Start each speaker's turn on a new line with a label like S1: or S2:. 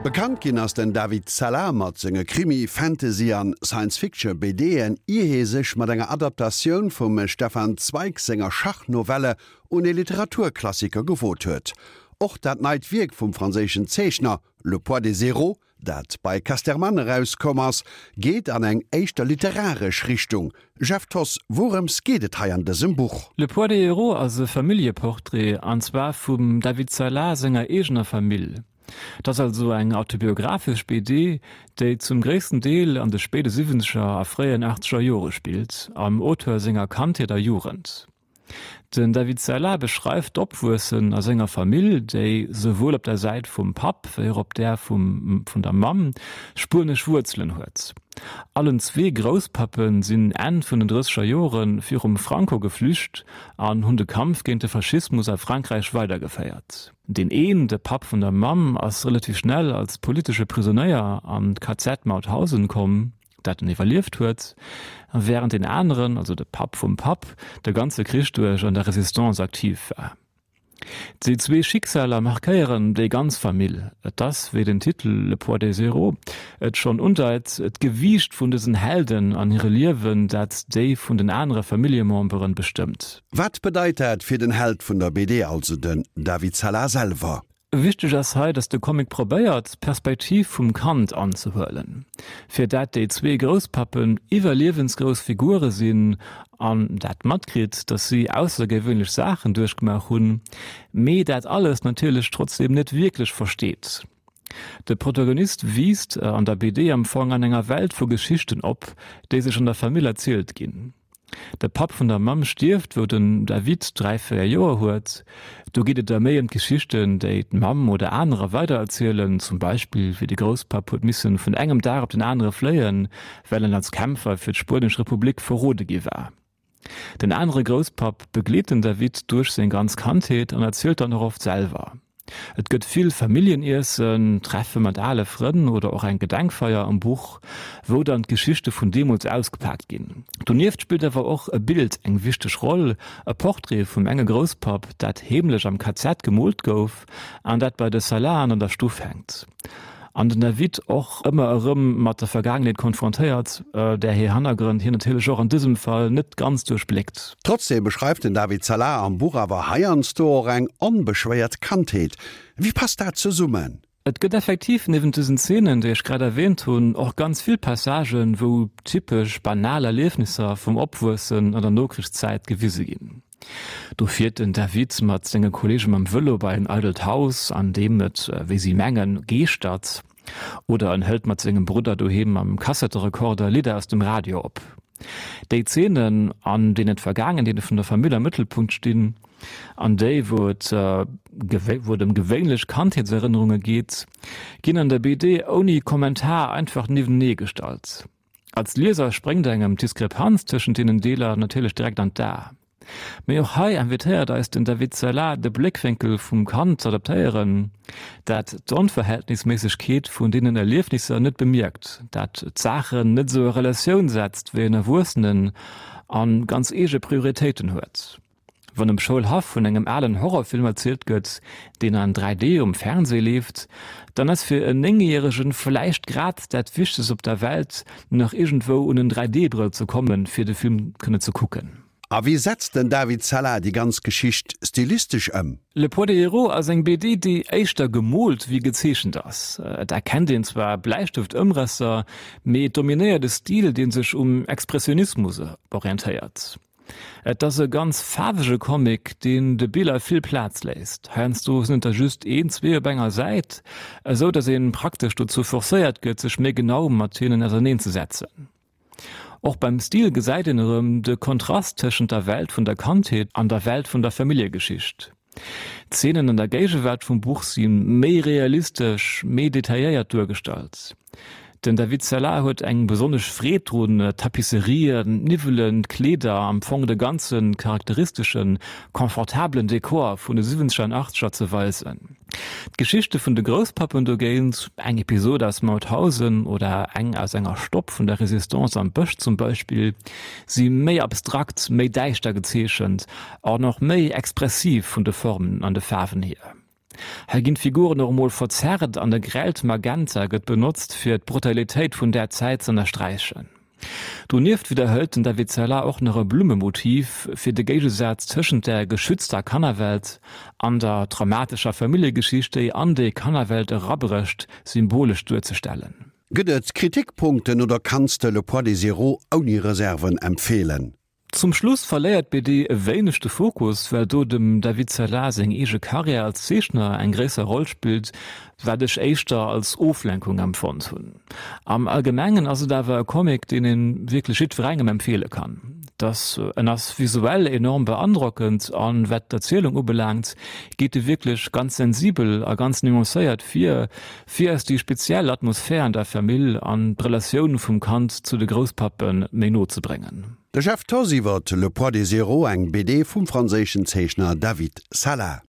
S1: Bekannt ginn ass den David Sala mat senge Krimi-, Fantasy an Science-Fiction BDen, ier hie sech mat enger Adaptatioun vum Stefan Zweig senger Schachnovelle un ee Literaturklassiker gewot huet. Och dat neit Wierk vum franséischen Zeechner Le poids des héros, dat bei Casterman erauskomm ass, geet an eng éischter literaresch Richtung. Jeff Thoss, wourëms geet et hei an dësem Buch?
S2: Le poids des héros ass e Familljeportrait, an zwar vum David Sala senger eegener Famill. Et ass also eng autobiographesch BD, déi zum gréissten Deel an de spéide siwwenzeger a fréien achtzeger Jore spillt, am Auteur senger Kandheet a Jugend. Den David Sella beschreift d'Opwuessen a senger Famill, déi souwuel op der Säit vum Papp wéi och op där vum vun der Mamm spuenesch Wuerzelen huet. Allen zwee Grousspappe sinn Enn vun den drësseger Jore virum Franco geflücht an hunn de Kampf géint de Faschismus a Frankräich weidergeféiert. Deen een, de Papp vun der Mamm, ass relativ schnell als politesche Prisonéier an d'KZ Mauthausen komm, dat en iwwerlieft huet, wärend deen aneren, also de Papp vum Papp, de ganze Krich duerch an der Resistance aktiv war. Déi zwee Schicksaler markéieren déi ganz Famill. Et ass, wéi den Titel Le poids des héros et schonn undeit, d'Gewiicht vun dësen Helden an hire Liewen, dat déi vun den anere Familljememberen bestëmmt.
S1: Wat bedeit dat fir den Held vun der BD, also den David Sala selwer?
S2: Wichteg ass hei, dass de Comic probéiert, d'Perspektiv vum Kand anzehuelen, fir dat déi zwee Grousspappen iwwerliewensgrouss Figure sinn an dat matkritt, dass si aussergewöhnlech Saachen duerchgemaach hunn, mee dat alles natierlech trotzdeem net wierklech versteet. De Protagonist wiisst an der BD am Fong an enger Welt vu Geschichten op, déi sech an der Famill erzielt ginn. De Papp vun der Mamm stierft, wou den David 3, 4 Joer huet. Do geet et da méi ëm d'Geschichten, déi d'Mamm oder anerer weidererzielen, zum Beispill wéi de Grousspapp huet missen vun engem Dag op den anere fléien, well en als Kämpfer fir d'Spuenesch Republik verrode gi war. Den anere Grousspapp begleet den David duerch seng ganz Kandheet an erzielt dann och oft selwer. Et gëtt vill Familljeniessen, Treffe mat ale Frënn oder och eng Gedenkfeier am Buch, wou dann d'Geschichte vun deemools ausgepaakt ginn. Donieft spillt awer och e Bild eng wichteg Roll, e Portrait vum enge Grousspapp, dat heemlech am KZ gemoolt gouf an dat bei de Salaen an der Stuff hänkt. An den David och ëmmer erëm mat der Vergaangenheet konfrontéiert, där hir Hannergrënn hien natierlech och an dësem Fall net ganz duerchbléckt.
S1: Trotzdeem beschreift den David Sala am Buch awer heiansdo och eng onbeschwéiert Kandheet. Wéi passt dat zesummen?
S2: Et gëtt effektiv niewent dësen Zeenen, déi ech grad erwähnt hunn, och ganz vill Passagen, wou typesch banal Erliefnisser vum Opwuessen an der Nokrichszäit gewise ginn. Do fiert den David mat senge Kolleege mam Vëlo bei en eidelt Haus, an deem et, wéi si mengen, geeschtert. Oder en hëlt mat sengem Brudder doheem mam Kassetterekorder Lidder aus dem Radio op. Déi Zeenen, an deenen d'Vergaangenheete vun der Famill am Mëttelpunkt stinn, an déi, wou et wou et ëm gewéinlech Kandheetserënnerunge geet, ginn an der BD ouni Kommentar einfach niewentenee gestallt. Als Lieser spréngt engem d'Diskrepanz tëschent deenen Deeler natierlech direkt an d'A. Mee och hei invitéiert eis den David Sella de Bléckwénkel vum Kand z'adaptéieren, dat d'Onverhältnisméissegkeet vun deenen Erliefnisser net bemierkt, dat d'Saachen net esou a Relatioun setzt wéi en Erwuessenen a ganz eege Prioritéiten huet. Wann um Schoulhaff vun engem alen Horrorfilm erzielt gëtt, deen an 3D um Fernsee leeft, dann ass fir en Néngjäregen vläicht grad dat Wichtegst op der Welt, nach iergendwou un en 3D-Brëll ze kommen, fir de Film kënne ze kucken.
S1: A wéi setzt den David Sella déi ganz Geschicht stilistesch ëm?
S2: Le poids des héros ass eng BD, déi éischter gemoolt wéi gezeechent ass. Et erkennt een zwar Bläistëft-Ëmrësser, mee et dominéiert e Stil, dee sech um Expressionismus orientéiert. Et ass e ganz faarwege Comic, deen de Biller vill Plaz léisst. Heiansdo sinn et der just een, zwee op enger Säit, esou datt een praktesch dozou forcéiert gëtt, sech méi genau mat hinnen auserneen ze setzen. Och beim Stil gesäit een erëm de Kontrast tëschent der Welt vun der Kandheet an der Welt vun der Familljegeschicht. D'Zeenen an der Géigewaart vum Buch si méi realistesch, méi detailléiert duergestallt. Den David Sella huet eng besonnesch Freed drun, d'Tapisserien, d'Niwwelen, d'Kleeder, am Fong de ganze charakteristeschen, confortabelen Dekor vun de siwwenzeger an achtzeger ze weisen. D'Geschichte vun de Grousspappen dogéint, eng Episod aus Mauthausen oder eng aus enger Stopp vun der Resistance am Bësch zum Beispill, si méi abstrakt, méi däischter gezeechent an och méi expressiv vun de Formen an de Faarwen hier. Hei ginn d'Figuren och emol verzerrt an e grellt Magenta gëtt benotzt fir d'Brutalitéit vun där Zäit z'ënnersträichen. Donieft widderhëlt den David Sella och nach e Blummemotiv, fir de Géigesaz tëschent der geschützter Kannerwelt an der traumatescher Familljegeschicht, déi an déi Kannerwelt erabrécht, symbolesch duerzestellen.
S1: Gëtt et Kritikpunkten oder kanns de Le poids des héros ouni Reserven empfeelen?
S2: Zum Schluss verléiert d'BD e wéineg de Fokus, well do dem David Sella seng eege Karriär als Zeechner eng gréisser Roll spillt, wat ech éischter als Oflenkung empfonnt hunn. Am Allgemengen ass et awer e Comic, deen een wierklech jiddwerengem empfeele kann. Dass en ass visuell enorm beandrockend an wat d'Erzielung ubelaangt, geet e wierklech ganz sensibel a ganz nuancéiert vir, fir eis déi speziell Atmosphär an der Famill an d'Relatioun vum Kand zu de Grousspappe méi no ze bréngen.
S1: De Jeff Thoss iwwer Le poids des héros, eng BD vum franséischen Zeechner David Sala.